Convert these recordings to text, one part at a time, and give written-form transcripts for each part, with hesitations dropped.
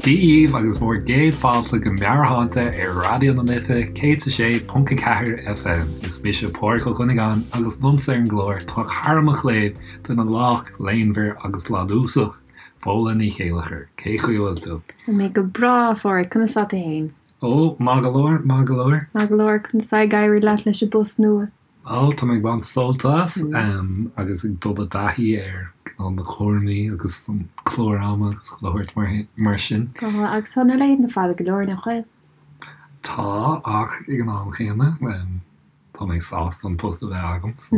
Dia dhaoibh agus bhur gcéad fáilte go Meabhairshláinte ar Raidió na Life 106.4 FM. Is mise Pádraig Ó Cuinneagáin agus liomsa ar an gclár tá cara mo chléibh, duine lách, léanmhar agus ládúsach, Fódhla Ní Chéilleachair. Cé chaoi a bhfuil tú? Tá mé go breá, a Phádraig. Conas tá tú fhéin? Ó, maith go leor, maith go leor. Maith go leor. Conas tá ag éirí leat leis an bpost nua? Ó, tá mé ag baint sult as agus ag dul i dtaithí ar cineál na cúraimí agus an clár ama agus chuile shórt mar sin. Tá, agus tá na laethanta fada go leor, nach bhfuil? Tá, ach ag an am chéanna, tá mé sásta an post a bheith agam. So,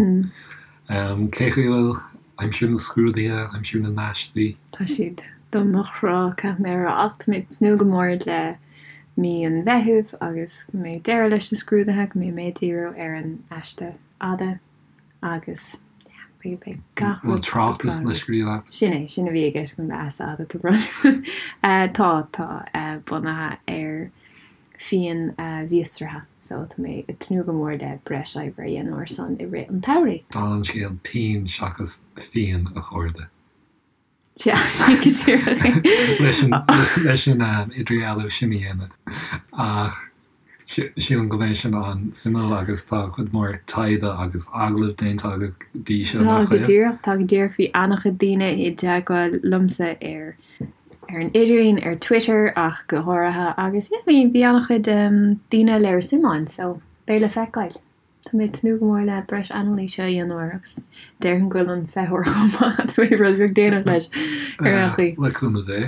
cé chaoi a bhfuil aimsir na scrúduithe, aimsir na n-aistí? Tá siad do mo chrá, caithfidh mé a rá, ach tá mé ag tnúth go mór le mí an Mheithimh agus go mbeidh deireadh leis na scrúduithe, go mbeidh mé ag díriú ar an aiste fhada agus yeah, beidh, beidh gach rud. Bhfuil tráchtas le scríobh agat? Sin é, sin a bhí i gceist agam le aiste fhada, tá brón orm. Tá, tá, bunaithe ar fíon mhíostraithe so tá mé ag tnúth go mór le breis oibre a dhéanamh ar son i rith an tsamhraidh. Dála an scéil, píon seachas fíon, a chairde. Sea, sin go díreach é. Leis an, leis an idirdhealú sin a dhéanamh. Ach sílim go mbeidh sin an-suimiúil agus tá cuid mhór taighde agus agallamh déanta agat go dtí seo, Tá nach go bhfuil? díreach, tá go díreach. Bhí an-chuid daoine i dteagmháil liomsa ar ar an idirlíon, ar Twitter ach go háirithe agus yeah, bhí bhí an-chuid daoine ag léiriú suim ann so beidh le feiceáil. Tá mé ag tnúth go mór le breis anailíse a dhéanamh air agus déarfainn go bhfuil an feitheoir chomh maith, tá mé rud beag déanach leis ar aon chaoi. Le cúnamh Dé.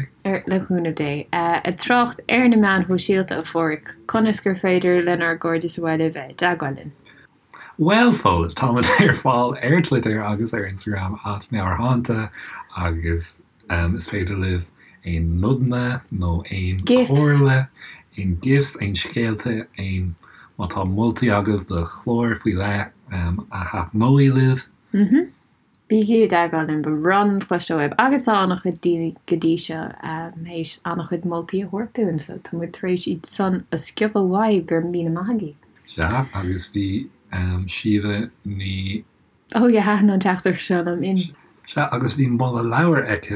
Le cúnamh Dé. Ag trácht ar na meáin shóisialta, a Pháraic, conas gur féidir lenár gcairde sa bhaile bheith i dteagmháil linn? Bhuel, Fódhla, táimid ar fáil ar Twitter agus ar Instagram at Meabhairshláinte agus Is féidir libh aon nodanna nó aon chomhairle, aon gifs, aon scéalta, aon, má tá moltaí agaibh do chláir faoi leith a thaitneoidh libh. Bígí i dteagmháil linn, ba bhreá linn cloisteáil uaibh agus tá an-chuid daoine go dtí seo théis an-chuid moltaí a thabhairt dúinn so tá muid tar éis iad san a sciobadh uaibh, go raibh míle maith agaibh. Sea, agus bhí Síomha Ní. Oh yeah, thaitin an teachtaireacht seo liom in. Sea, agus bhí moladh leabhair aici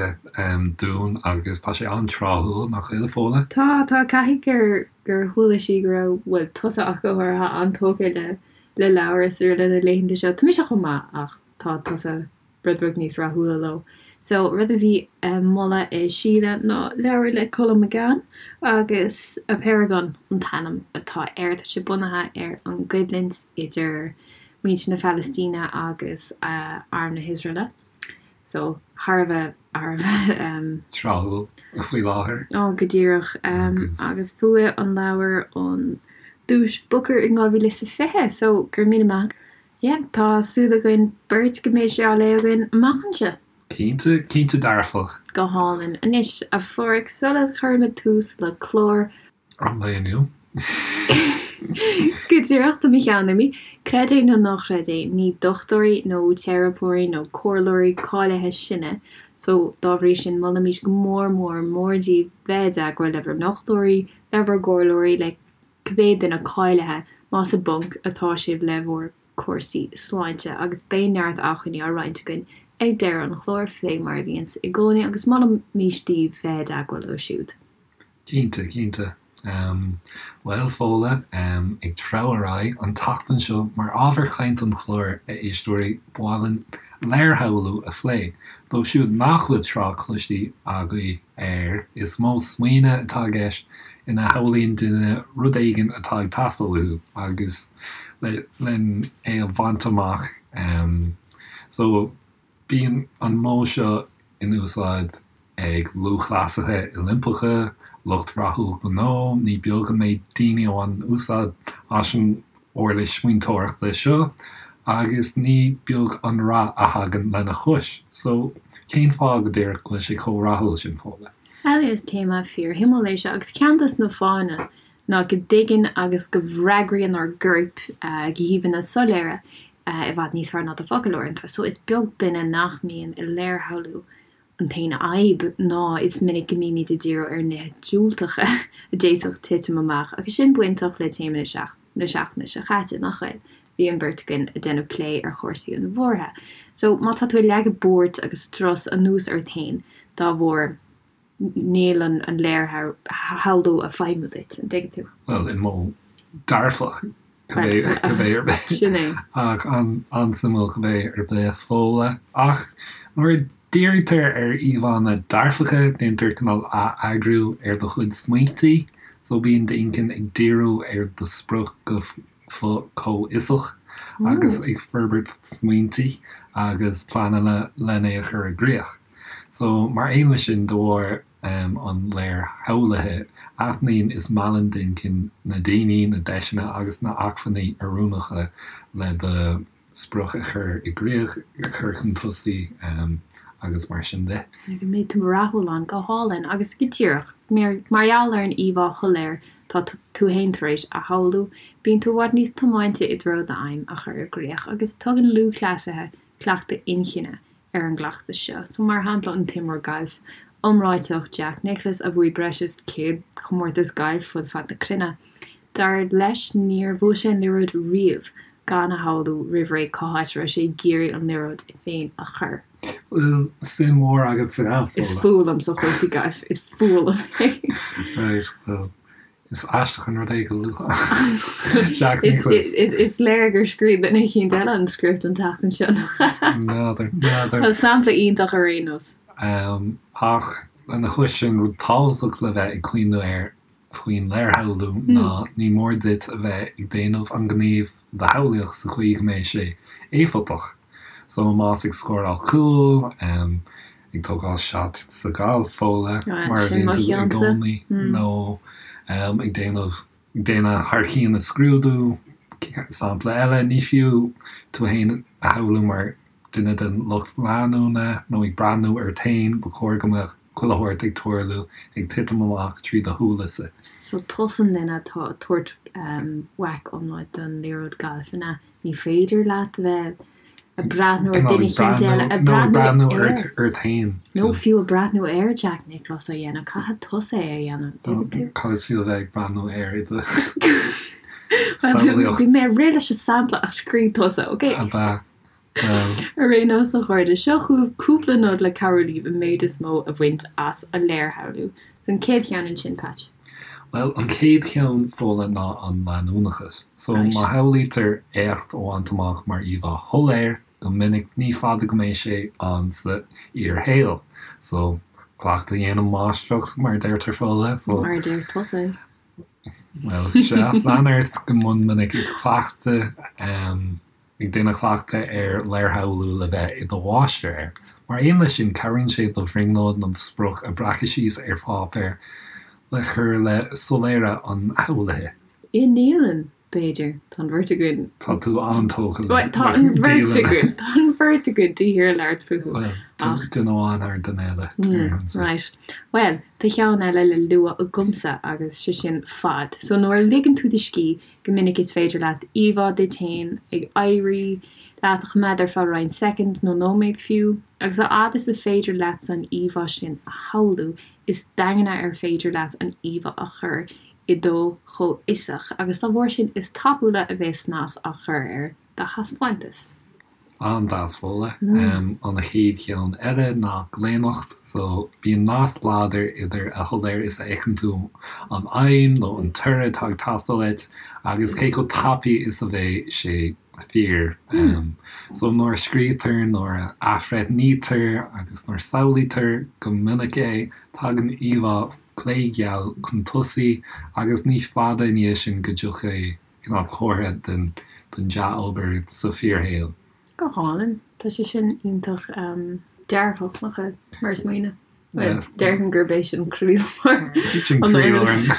dúinn agus tá sé an-tráthúil, nach bhfuil, a Fódhla? Tá, tá, caithfidh gur, gur chuala sí go raibh, bhuel, tusa ach go háirithe, an-tógtha le, le leabhair is araile na laethanta seo. Tá mise chomh maith ach tá tusa rud beag níos rathúla leo. So, rud a bhí á mholadh ag Síle ná leabhar le Colm McGann agus Apeirogon an t-ainm atá air. Tá sé bunaithe ar an gcoimhlint idir muintir na Palaistíne agus arm na hIosraeile. So, thar a bheith, thar a bheith. tráthúil faoi láthair. Ó, go díreach. Agus bhuaigh an leabhar an duais Booker in 2020, so go raibh míle maith. Yeah, tá súil againn beirt go mbeidh sé á léamh againn amach anseo. Cinnte, cinnte dearfach. Go hálainn. Anois, a Pháraic, sula gcuirimid tús le clár. An lae inniu. Go díreach, tá mo cheann imithe. Creid é nó ná creid é, ní dochtúirí nó teiripeoirí nó comhairleoirí cáilithe sinne, so dá bhrí sin molaimid go mór mór mór daoibh bheith i dteagmháil le bhur ndochtúirí, le bhur gcomhairleoirí, le cibé duine cáilithe, más i bponc atá sibh le bhur gcúrsaí sláinte, agus beidh neart acmhainní á roinnt againn ag deireadh an chláir, fé mar a bhíonns i gcónaí, agus molaimís daoibh bheith i dteagmháil leo siúd. Cinnte, cinnte. Bhuel, Fódhla, ag treabhadh ar aghaidh, an tseachtain seo, mar ábhar cainte an chláir, a éisteoirí, ba mhaith linn léirshamhlú a phlé. Dóibh siúd nach bhfuil trácht cloiste agaibh air, is modh smaoine atá i gceist ina shamhlaíonn duine rud éigin atá ag teastáil uathu agus len é a bhaint amach. So, Bíonn an modh seo in úsáid ag lúthchleasaithe Oilimpeacha, lucht rathúil gnó, ní beag an méid daoine a bhaineann úsáid as an uirlis smaointeoireachta seo agus ní beag an rath a thagann lena chois. So, cén fáth go díreach go bhfuil sé chomh rathúil sin, Fódhla? Bhuel, is téama fíorshuimiúil é seo agus ceann dos na fáthanna ná go dtuigeann agus go bhfreagraíonn ár gcoirp go híomhánna soiléire i bhfad níos fearr ná do focail uaireanta. So is beag duine nach mbíonn i léirshamhlú. An t-aon fhadhb ná is minic go mbímid ag díriú ar nithe diúltacha a d'fhéadfadh titim amach agus sin bainteach le téama na seachtaine seo caite, nach bhfuil? Bhí an bheirt againn ag déanamh plé ar chúrsaí an bhuartha. So má tá tú ag leagadh buairt agus strus anuas ort féin dá bharr. Níl an léirshamhlú ag feidhmiú duit, an dtuigeann tú? Bhuel, i modh dearfach, cibé ar bith. Sin é. Ach an-suimiúil cibé ar bith, Fódhla. Ach nuair a dhírítear ar íomhánna dearfacha, déantar cineál ath-eagrú ar do chuid smaointe, so bíonn d'inchinn ag díriú ar do sprioc go comhfhiosach agus ag forbairt smaointe agus pleananna len é a chur i gcrích. So, mar aon leis sin, de bharr an léirshamhlaithe, aithníonn is meallann d'inchinn na daoine, na deiseanna agus na acmhainní oiriúnacha le do sprioc a chur i gcrích, a chur chun tosaigh agus mar sin de. Go mbeidh tú rathúil ann, go hálainn agus go díreach mar gheall ar an íomhá shoiléir tá tú féin tar éis a shamhlú, bíonn tú i bhfad níos tiomáinte i dtreo d'aidhm a chur i gcrích agus tugann lúthchleasaithe cleachtadh inchinne ar an gcleachtas seo. So, mar shampla, an t-imreoir gailf iomráiteach Jack Nicklaus a bhuaigh breis is 100 comórtas gailf fud fad na cruinne, dar leis níor bhuail sé an liathróid riamh gan a shamhlú roimh ré cá háit a raibh sé ag iarraidh an liathróid féin a chur. Bhfuil suim mhór agat sa ghalf, Is fuath liomsa chúrsaí gailf, is fuath liom é. Right, well, Is aisteach an rud é go luafá Jack Nicklaus. Is léir gur scríobh duine eicínt eile an script an tseachtain seo, nach ea? N'fheadar, n'fheadar. Bhuel, sampla iontach ar aon nós. Ach lena chois sin, rud tábhachtach le bheith ag cuimhniú air faoin léirshamhlú ná ní mór duit a bheith ag déanamh an ghníomh do shamhlaíocht sa chaoi go mbeidh sé éifeachtach. So más ag scóráil cúl, ag tógáil shot sa ghalf, Fódhla, mar a Sin bhíonn mo tú i cheannsa. gcónaí, nó ag déanamh, ag déanamh thar cionn i scrúdú, sampla eile, ní fiú tú fhéin a shamhlú mar duine den lucht leanúna nó ag breathnú ort fhéin, ba chóir go mbeadh chuile shórt ag tarlú, ag titim amach trí do shúile-sa. So tusa an duine atá ag tabhairt whack iomlán don liathróid gailf, an ea? Ní féidir leat a bheith ag breathnú ar duine eicínt eile, ag breathnú air, ort féin. Nó fiú ag breathnú ar Jack Nicklaus á dhéanamh, caithfidh tusa é a dhéanamh, tuigeann tú? Cad is fiú a bheith ag breathnú air i do samhlaíocht? Bhí mé ag rith leis an sampla ach scríobh tusa, ok? Ab ea? Ar aon nós, a chairde, seo chugaibh cúpla nod le cabhrú libh an méid is mó a bhaint as an léirshamhlú. So an chéad cheann ansin, Patch. Bhuel, an chéad cheann, Fódhla, ná an leanúnachas. So má shamhlaítear éacht a bhaint amach mar íomhá shoiléir, go minic ní fada go mbeidh sé ann sa fhíorshaol. So, cleachtadh a dhéanann máistreacht, mar a deirtear, Fódhla. So. Mar a deir tusa. Bhuel, sea, lean ort go mion minic ag cleachtadh. ag déanamh cleachtadh ar léirshamhlú le bheith i do mháistir air. Mar aon leis sin, cabhraíonn sé do bhrionglóid nó do sprioc a bhreacadh síos ar pháipéar le cur le soiléire an shamhlaithe. I ndialann, b'fhéidir. Tá an bheirt againn. Tá tú an-tógtha le Bhuel, tá an bheirt againn. Tá an bheirt againn de shíor ag labhairt fúthu. Bhuel, duine amháin thar duine eile. Right. Bhuel, tá ceann eile le lua agamsa agus sé sin fad. So nuair a ligeann tú do scíth, Go minic is féidir leat íomhá duit féin ag éirí leat a choimeád ar feadh roinnt soicind nó nóiméad fiú, agus a fhad is is féidir leatsa an íomhá sin a shamhlú, is daingne ar féidir leat an íomhá a chur i do chomhfhiosach, agus dá bharr sin is tapúla a bheas snas á chur ar do thaispeántas. An-deas, Fódhla. An chéad cheann eile ná glaonnacht. So, bíonn nasc láidir idir a shoiléir is a fheiceann tú an aidhm nó an toradh atá ag teastáil uait agus cé chomh tapaidh is a bheidh sé fíor. So, nuair a scríobhtar, nuair a athbhreithnítear agus nuair a samhlaítear go minic é, tagann íomhá glégheal chun tosaigh agus ní fada i ndiaidh sin go dtiocfaidh cineál comhartha den dea-obair sa fíorshaol. Go hálainn. Tá sé sin iontach dearfach, nach ea, mar smaoineamh? Bhuel, déarfainn gurb é sin croílár Sin an croílár eolais.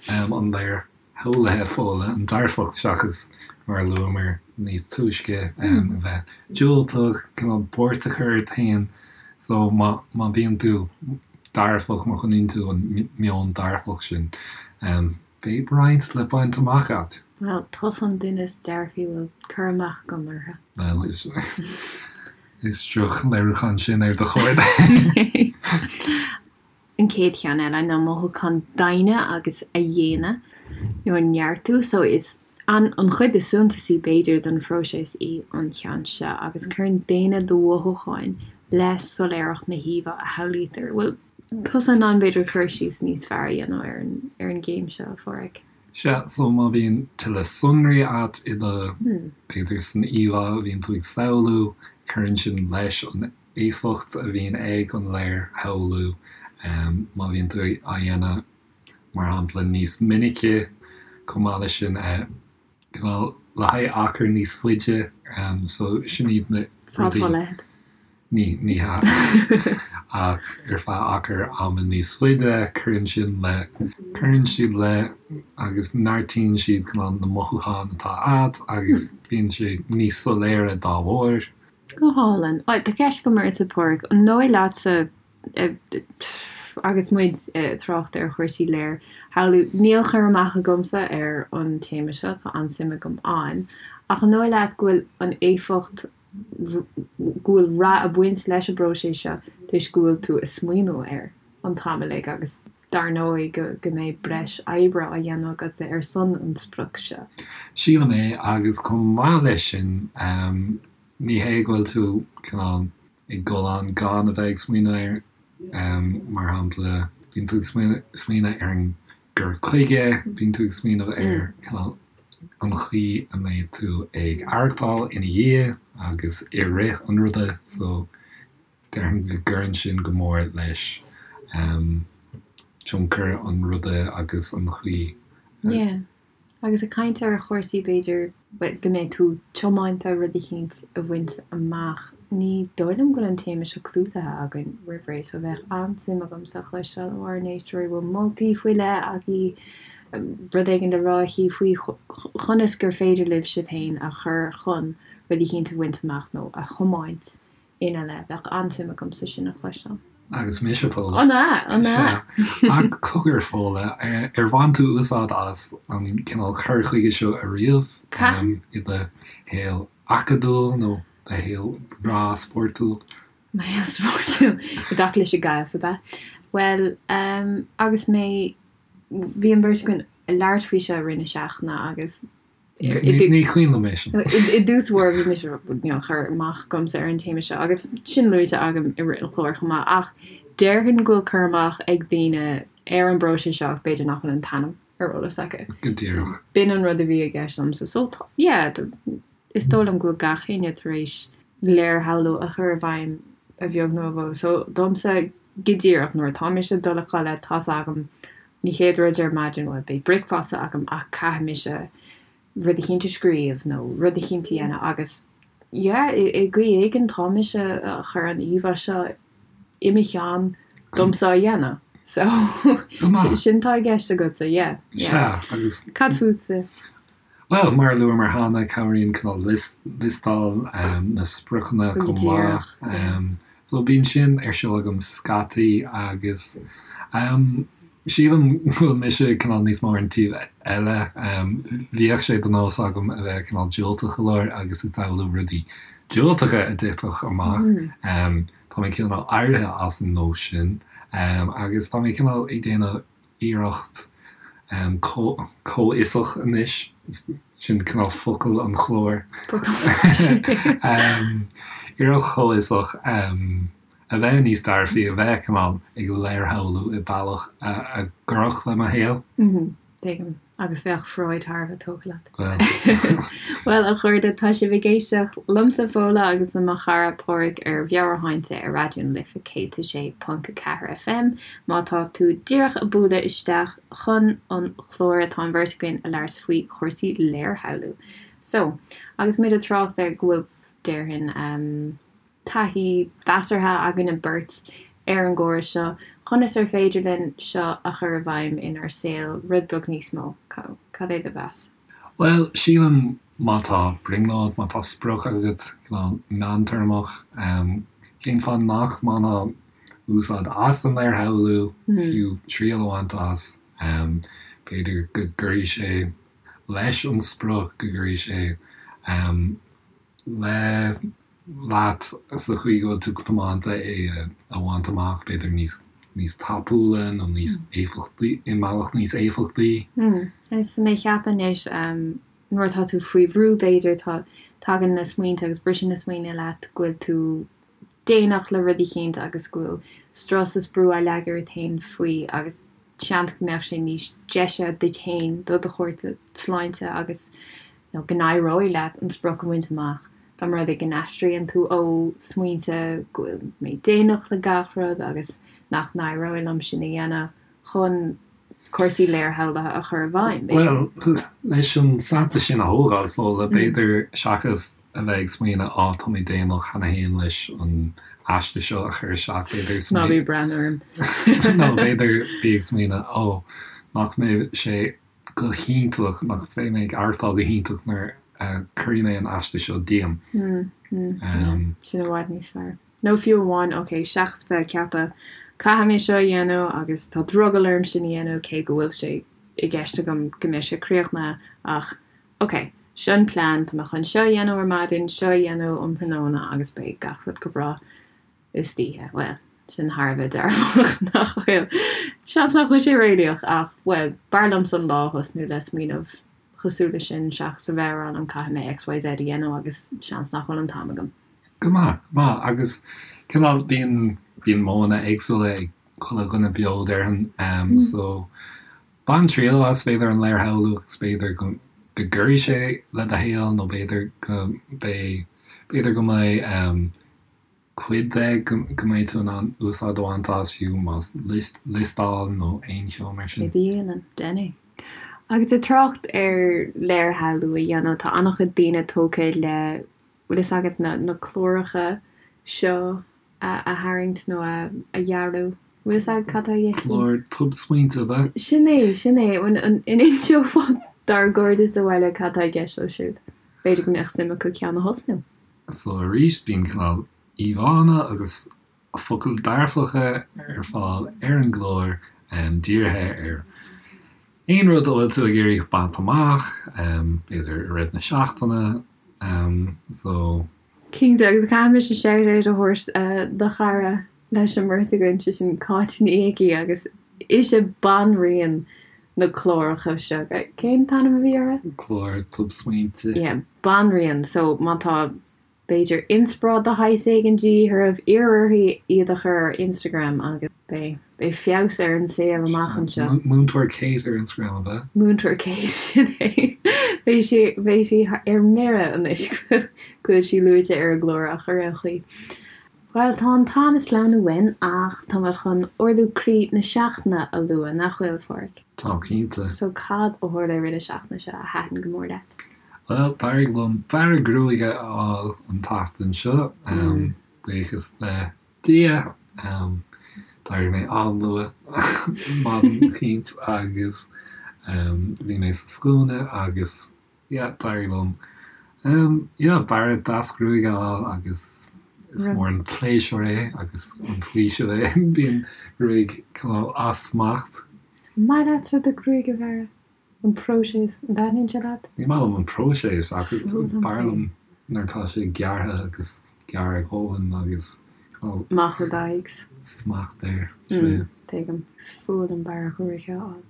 an léirshamhlaithe, Fódhla, an dearfacht seachas, mar a luamar níos túisce, a bheith diúltach, cineál buairt a chur ort féin. So má bhíonn tú dearfach, má choinníonn tú an meon dearfach sin, Beidh roinnt le baint amach agat. Bhuel, tusa an duine is dearfaí a bhfuil cur amach agam orthu. Bhuel, is is droch-léiriúchán sin ar do chairde. An chéad cheann eile ná mothúcháin daingne agus a dhéine nó a neartú. So is an an chuid is suntasaí b'fhéidir den phróiseas í an cheann seo agus cuireann déine do mhothúcháin le soiléireacht na híomhá a shamhlaítear. Bhuel. tusa in ann b'fhéidir cur síos níos fearr a dhéanamh ar an ar an gcéim seo, a Pháraic. Sea, so má bhíonn tuilleadh sonraí agat i do, b'fhéidir san íomhá a bhíonn tú ag samhlú, cuireann sin leis an éifeacht a bhíonn ag an léirshamhlú. Má bhíonn tú á dhéanamh, mar shampla, níos minice, chomh maith leis sin, cineál le haghaidh achar níos faide, so sin iad na rudaí. Fad fá leithead. Ní, ní hea. Ach ar feadh achar ama níos faide, cuireann sin le, cuireann siad le agus neartaíonn siad cineál na mothúcháin atá agat agus bíonn sé níos soiléire dá bharr. Go hálainn. Tá ceist agam ortsa, Páraic. An dóigh leatsa, agus muid ag trácht ar chúrsaí léirshamhlú, níl cur amach agamsa ar an téama seo, tá an-suim agam ann, ach an dóigh leat go bhfuil an éifeacht, go bhfuil rath ag baint leis an bpróiseas seo toisc go bhfuil tú ag smaoineamh air an t-am uilig agus dar ndóigh go go mbeidh breis oibre á dhéanamh agatsa ar son an sprioc seo. Sílim é agus chomh maith leis sin ní hé go bhfuil tú cineál ag dul ann gan a bheith ag smaoineamh air, mar shampla bíonn tú ag smaoineamh ar an gcur chuige, bíonn tú ag smaoineamh ar cineál an chaoi a mbeidh tú ag aireachtáil ina dhiaidh agus i rith an ruda so déarfainn go gcuireann sin go mór leis tionchar an ruda agus an chaoi a. Yeah. Agus ag caint ar chúrsaí b'fhéidir go mbeidh tú tiomanta rud eicínt a bhaint amach, ní dóigh liom go bhfuil an téama seo clúdaithe againn roimh ré so bheadh an-suim agamsa cloisteáil ó ár n-éisteoirí an bhfuil moltaí faoi leith agaí, rud éigin le rá aici faoi chonas gur féidir libh sibh féin a chur chun rud eicínt a bhaint amach nó a thiomáint ina leith. Bheadh an-suim agamsa sin a chloisteáil. Agus mise, Fódhla. An ea? An ea? Sea. Ach cogar, Fódhla, ar bhain tú úsáid as an cineál cur chuige seo ariamh i do shaol acadúil nó do shaol breá spórtúil? Mo shaol spórtúil? I dtaca leis an gcaitheamh, ab ea? Bhuel, agus mé, bhí an bheirt againn ag labhairt faoi seo i rith na seachtaine agus Ní cuimhin liom é sin. I dtús báire bhí mise níl cur amach agamsa ar an téama seo agus sin luaite agam i rith an chláir chomh maith ach déarfainn go bhfuil cur amach ag daoine ar an bpróiseas seo ach b'fhéidir nach bhfuil an t-ainm ar eolas acu. Go díreach. B'in an rud a bhí i gceist liomsa. So yeah, is dóigh liom go bhfuil gach éinne tar éis léirshamhlú a chur i bhfeidhm a bheag nó a mhór. So domsa go díreach nuair atá mise ag dul a chodladh tá's agam An chéad rud ar maidin, bhuel, beidh bricfeasta agam ach caithfidh mise rud eicínt a scríobh nó rud eicínt a dhéanamh agus yeah, i gcaoi éigin tá mise a chur an íomhá seo i mo cheann domsa á dhéanamh. So sin tá i gceist agatsa, yeah, yeah. Sea, agus. Cad fútsa? Bhuel, mar a luamar cheana, cabhraíonn cineál liostáil na spriocanna chomh maith. So bíonn sin ar siúl agam scaití agus sílim go bhfuil mise cineál níos mó ar an taobh eile. Bhíodh sé de nós agam a bheith cineál diúltach go leor agus ag samhlú rudaí diúltacha a dtitfeadh amach. Tá mé cineál éirithe as an nós sin agus tá mé cineál ag déanamh iarracht comhfhiosach anois, sin cineál focal an chláir, iarracht chomhfhiosach a bheith níos dearfaí, a bheith cineál ag léirshamhlú i bealach a gcuirfeadh le mo shaol. Tuigim. Agus bheadh Freud thar a bheith tógtha leat. Bhuel. Bhuel, a chairde, tá sibh ag éisteacht liomsa, Fódhla, agus le mo chara Páraic ar Mheabhairshláinte ar Raidió na Life 106.4 FM. Má tá tú díreach ag bualadh isteach chun an chláir, tá an bheirt againn ag labhairt faoi chúrsaí léirshamhlú. So, agus muid ag trácht ar go bhfuil, déarfainn, ehm, taithí mheasartha againne beirt ar an gcóras seo, conas ar féidir linn seo a chur i bhfeidhm inár saol rud beag níos mó? Cad é do mheas? Bhuel, sílim má tá brionglóid, má tá sprioc agat, cineál meántéarmach, cén fáth nach mbainfeá úsáid as an léirshamhlú, fiú triail a bhaint as? B'fhéidir go gcuirfidh sé leis an sprioc, go gcuirfidh sé le leat sa chaoi go bhfuil tú tiomanta é a bhaint amach, b'fhéidir níos níos tapúla nó níos éifeachtaí, i mbealach níos éifeachtaí. Agus tá mé ag ceapadh anois, nuair atá tú faoi bhrú b'fhéidir, tá, tagann na smaointe agus briseann na smaointe leat go bhfuil tú. déanach le rud eicínt agus go bhfuil strus is brú á leagadh ort féin faoi agus seans go mbeadh sé níos deise duit féin, do do chúrsa sláinte agus nó go n-éireoidh leat an sprioc a bhaint amach dá mba rud é go n-aistríonn tú ó smaointe go bhfuil mé déanach le gach rud agus nach n-éireoidh liom sin a dhéanamh chun cúrsaí léirshamhlaithe a chur i bhfeidhm, b'fhéidir. Bhuel, leis an sampla sin a thógáil, Fódhla, b'fhéidir, seachas a bheith ag smaoineamh 'á, tá mé déanach cheana féin leis an aiste seo a chur isteach', b'fhéidir Ná bí ag breathnú orm. Nó b'fhéidir bí ag smaoineamh 'ó, nach mbeidh sé go hiontach, nach mbeidh mé ag aireachtáil go hiontach nuair a chuirfidh mé an aiste seo díom'. Sin i bhfad níos fearr. Nó fiú amháin, ok, seachas bheith ag ceapadh, caithfidh mé seo a dhéanamh agus tá drogall orm sin a dhéanamh cé go bhfuil sé i gceist agam go mbeidh sé críochnaithe ach, ok, seo an plean, tá mé chun seo a dhéanamh ar maidin, seo a dhéanamh um thráthnóna agus beidh gach rud go breá istoíche. Bhuel, sin thar a bheith dearfach, nach bhfuil? Seans nach bhfuil sé réalaíoch ach, bhuel, b'fhearr liomsa an lá a thosnú le smaoineamh cosúil leis sin seachas a bheith ag rá liom caithfidh mé XYZ a dhéanamh agus seans nach bhfuil an t-am agam. Go maith, go maith. Agus cineál bíonn, bíonn modhanna éagsúla ag chuile dhuine beo déarfainn. So bain triail as b'fhéidir an léirshamhlú agus b'fhéidir go, go gcuirfidh sé le do shaol nó b'fhéidir go mbeidh, b'fhéidir go mbeidh cuid de go, go mbeidh tú in ann úsáid a bhaint as fiú más list, liostáil nó aon cheo mar sin. Cé dhéanann? Déan é. Agus ag trácht ar léirshamhlú a dhéanamh, tá an-chuid daoine tógtha le bhfuil fhios agat na na cláracha seo a a tharraingt nó a a dhearadh. Bhfuil fhios agat cad tá i gceist? Clár tobsmaointe ab ea? Sin é, sin é. An an inseofá dár gcairde sa bhaile cad tá i gceist leo siúd? B'fhéidir go mbeadh suim acu ceann a thosnú. So arís bíonn cineál íomhánna agus focail dearfacha ar fáil ar an gclár dírithe ar aon rud a bhfuil tú ag iarraidh baint amach, b'fhéidir i rith na seachtaine. So. Cinnte, agus caithfidh mise shout out a thabhairt do chara leis an mbeirt againn, sé sin Cáit Ní Icí agus ise banríon na cláracha seo. Cén t-ainm a bhí orthu? Clár tobsmaointe. Yeah, banríon. So má tá b'fhéidir inspioráid de shaghas éigin de dhíth oraibh, iarr uirthi iad a chur ar Instagram agus beidh beidh feabhas ar an saol amach anseo. Múinteoir Kate ar Instagram, ab ea? Múinteoir Kate, sin é. Beidh sí beidh sí ar mire anois go bhfuil sí luaite ar an gclár ach ar aon chaoi. Bhuel, tá an t-am ag sleamhnú uainn ach tá muid chun ardú croí na seachtaine a lua, nach bhfuil, a Pháraic? Tá, cinnte. So cad a tharla i rith na seachtaine seo a thaitin go mór leat? Bhuel, d'éirigh liom bearradh gruaige a fháil an tseachtain seo, buíochas le Dia. D'éirigh mé an-luath maidin eicínt agus bhí mé sa scuaine agus yeah, d'éirigh liom yeah, bearradh deas gruaige a fháil agus is mór an pléisiúr é agus an faoiseamh é. Bíonn gruaig cineál as smacht. An maith leatsa do ghruaig a bhearradh? An próiseas, an dtaitníonn sé leat? Ní maith liom an próiseas ach is fearr liom nuair atá sé gearrtha agus gearr a dhóthain agus Amach ó d'aghaidh. smacht air. Tuigim. Is fuath liom bearradh gruaige a fháil.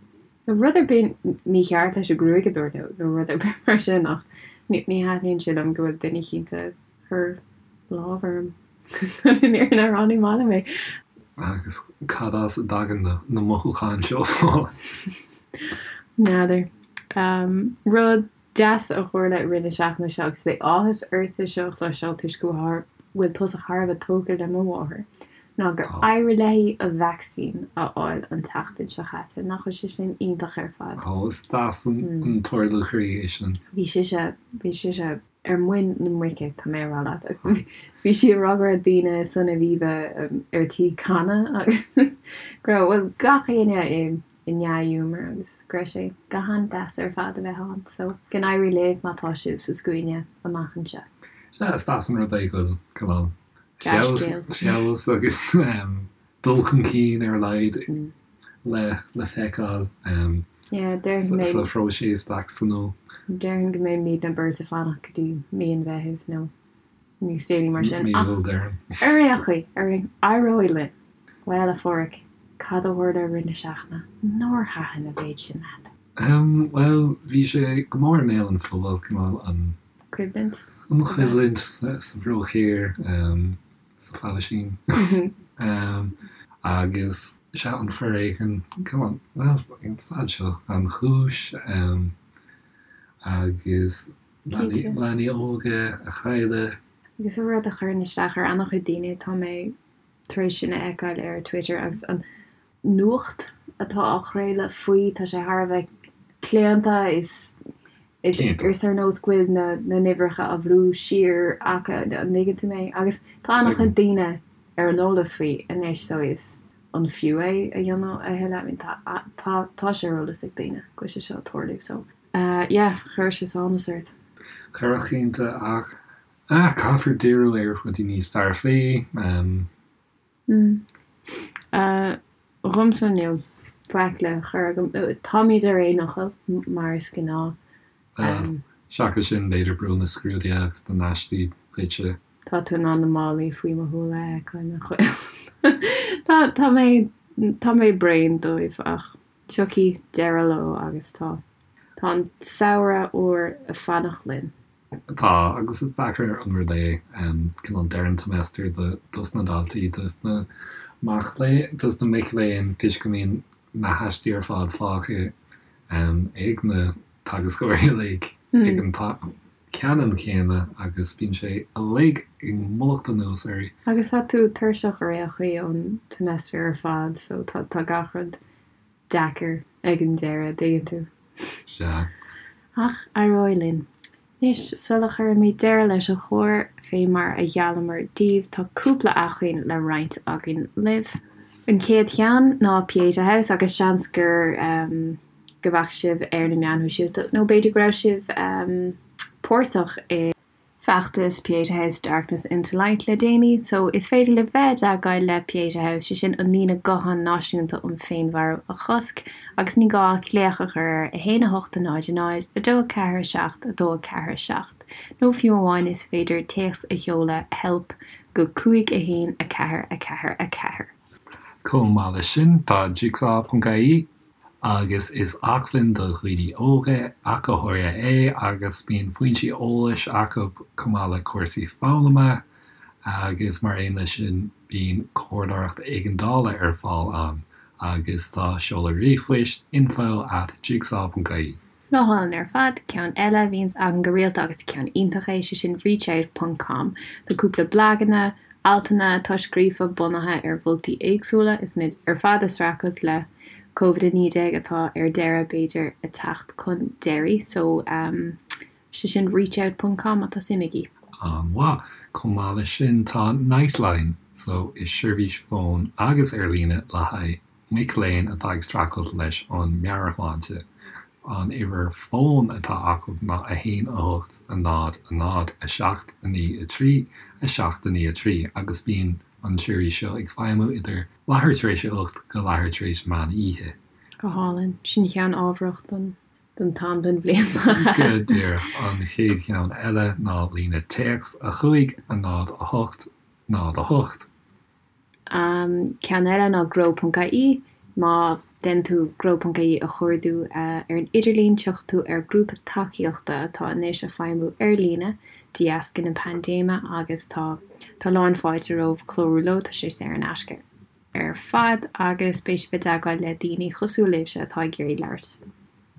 Nó rud ar bith mícheart leis an ghruaig a dúirt nó nó rud ar bith mar sin ach ní thaitníonn sé liom go bhfuil duine eicínt ag cur lámh orm. Chun an fhírinne a rá ní maith liom é. Agus cad as a dtagann na mothúcháin seo? N'fheadar. Rud deas a tharla i rith na seachtaine seo agus beidh áthas ort é seo a chloisteáil toisc go bhfuil tusa thar a bheith tógtha le mo mháthair, ná gur éirigh léi a vacsaín a fháil an tseachtain seo chaite. Nach bhfuil sé sin iontach ar fad? Ó, is deas an t-ardú croí é sin. Bhí sise, bhí sise ar muin na muice, tá mé a rá leat. Agus bhí sí ag rá go raibh daoine san Aviva ar tí canadh agus go raibh, bhuel, gach éinne i i ndea-ghiúmar agus go raibh sé go han-deas ar fad a bheith ann. So, go n-éirí libh má tá sibh sa scuaine amach anseo. Sea, is deas an rud é go bhfuil cineál feabhas agus dul chun cinn ar a laghad le feiceáil sa phróiseas vacsaíniú. Déarfainn go mbeimidne beirt ag fanacht go dtí mí an Mheithimh nó níos déanaí mar sin. Mí Iúil, déarfainn. Ar aon chaoi, ar aon, éireoidh linn! Bhuel, a Pháraic, cad a tharla i rith na seachtaine nár thaitin an mhéid sin leat? Bhuel, bhí sé go mór i mbéal an phobail, cineál an. Coimhlint. An choimhlint sa Bhruach Thiar. sa Phalaistín. Agus sea, an foréigean, come on, bhuel, an staid seo gan chúis agus leanaí óga a chailleadh. Agus an rud a chuireann isteach ar an-chuid daoine, tá mé tar éis sin a fheiceáil ar Twitter agus an nuacht atá á chraoladh faoi, tá sé thar a bheith claonta, is is ar nós go bhfuil na n-uimhreacha á bhrú siar acu, an dtuigeann tú mé? Agus tá an-chuid daoine ar an eolas faoi anois so is an fiú é a dhéanamh a thuilleadh? I mean tá tá tá sé ar eolas ag daoine go bhfuil sé seo ag tarlú so yeah chuirfeadh sé sánas ort. Chuirfeadh cinnte ach caithfear díriú ar rudaí níos dearfaí. Dhomsa níl faic le cur agam. Táimid ar aon fhocal, mar is gnáth. Bhuel, seachas sin, b'fhéidir brú na scrúduithe agus na n-aistí duitse. Tá tú in ann na málaí faoi mo shúile a fheiceáil, nach bhfuil? Tá, tá mé, tá mé bréan dóibh ach tiocfaidh deireadh leo agus tá, tá an samhradh úr ag fanacht linn. Tá, agus is deacair an rud é cineál deireadh an tseimeastair dos na daltaí, dos na mac léinn, dos na mic léinn toisc go mbíonn na haistí ar fad fágtha ag na teagascóirí uilig ag an t-am ceannann céanna agus bíonn sé uilig ag mullacht anuas ort. Agus tá tú tuirseach ar aon chaoi ón seimeastar ar fad so tá gach rud deacair ag an deireadh, dtuigeann tú. Sea. Ach éireoidh linn. Anois, sula chuirimid deireadh leis an chlár, fé mar a gheallamar daoibh, tá cúpla acmhainn le roinnt againn libh. An chéad cheann ná Pieta House agus seans gur go bhfaca sibh ar na meáin shóisialta nó b'fhéidir go raibh sibh páirteach i bhfeachtas Pieta House Darkness into Light le déanaí so is féidir libh bheith i dteagmháil le Pieta House, sé sin an líne gutháin náisiúnta um féinmharú a chosc agus ní gá ach glaoch a chur ar 1 8 0 0 2 4 7 2 4 7 nó fiú amháin is féidir téacs a sheoladh help go 5 1 4 4 4. Chomh maith leis sin tá Jigsaw.ie agus is acmhainn do dhaoine óga ach go háirithe é agus bíonn foinsí eolais acu chomh maith le cúrsaí foghlama agus mar aon leis sin bíonn comhairleoireacht éigeandála ar fáil ann agus tá seoladh ríomhphoist info at jigsaw ponc ie. Go hálainn ar fad. Ceann eile a bhíonns againn go rialta agus ceann iontach é, sé sin reachout ponc com. Tá cúpla blaganna, altanna atá scríofa bunaithe ar mholtaí éagsúla is muid ar fad ag streachailt le Covid-19 atá ar deireadh b'fhéidir ag teacht chun deiridh. So sé sin reachout ponc com má tá suim agaibh. An-mhaith. Chomh maith leis sin tá Nightline, so is seirbhís fóin agus ar líne le haghaidh mic léinn atá ag streachailt leis an meabhairshláinte. An uimhir fóin atá acu ná 1 8 0 0 7 9 3 7 9 3 agus bíonn an tseirbhís seo ag feidhmiú idir leathuair tar éis a 8 go leathuair tar éis meán oíche. Go hálainn. Sin ceann ábharach don don t-am den bhliain. Go díreach. An chéad cheann eile ná líne téacs 5 0 8 0 8. Ceann eile ná grow.ie. Má dhéanann tú grow.ie a chuardú ar an idirlíon, tiocfaidh tú ar grúpa tacaíochta atá anois ag feidhmiú ar líne de dheasca na paindéime agus tá tá lán fáilte romhaibh clárú leo, tá sé saor in aisce ar fad agus beidh sibh i dteagmháil le daoine cosúil libhse atá ag iarraidh labhairt.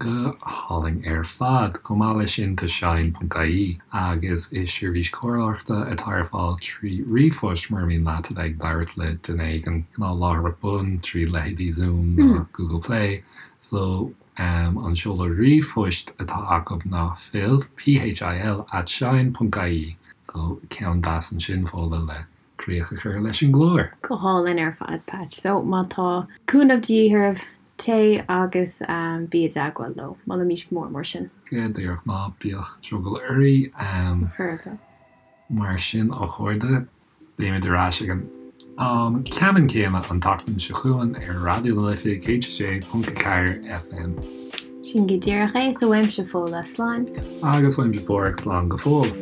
Go hálainn ar fad. Chomh maith leis sin tá Shine ponc ie agus is seirbhís comhairleoireachta atá ar fáil trí ríomhphost mura mian leat a bheith ag labhairt le duine éigin cineál láithreach bonn trí leithéidí Zoom nó Google Play. So an seoladh ríomhphoist atá acu ná phil, P-H-I-L, at shine ponc ie. So ceann deas ansin Fódhla le críoch a chur leis an gclár. Go hálainn ar fad, Patch. So, má tá cúnamh de dhíth oraibh, téigh agus bí i dteagmháil leo. Molaimís go mór mór sin. Go díreach, ná bíodh drogall oraibh. Chor ar bith. Mar sin, a chairde, beimid ar ais ag an am ceannann céanna an tseachtain seo chugainn ar Raidió na Life 106.4 FM. Sin go díreach é, so uaimse Fódhla, slán. Agus uaimse Páraic, slán go fóill.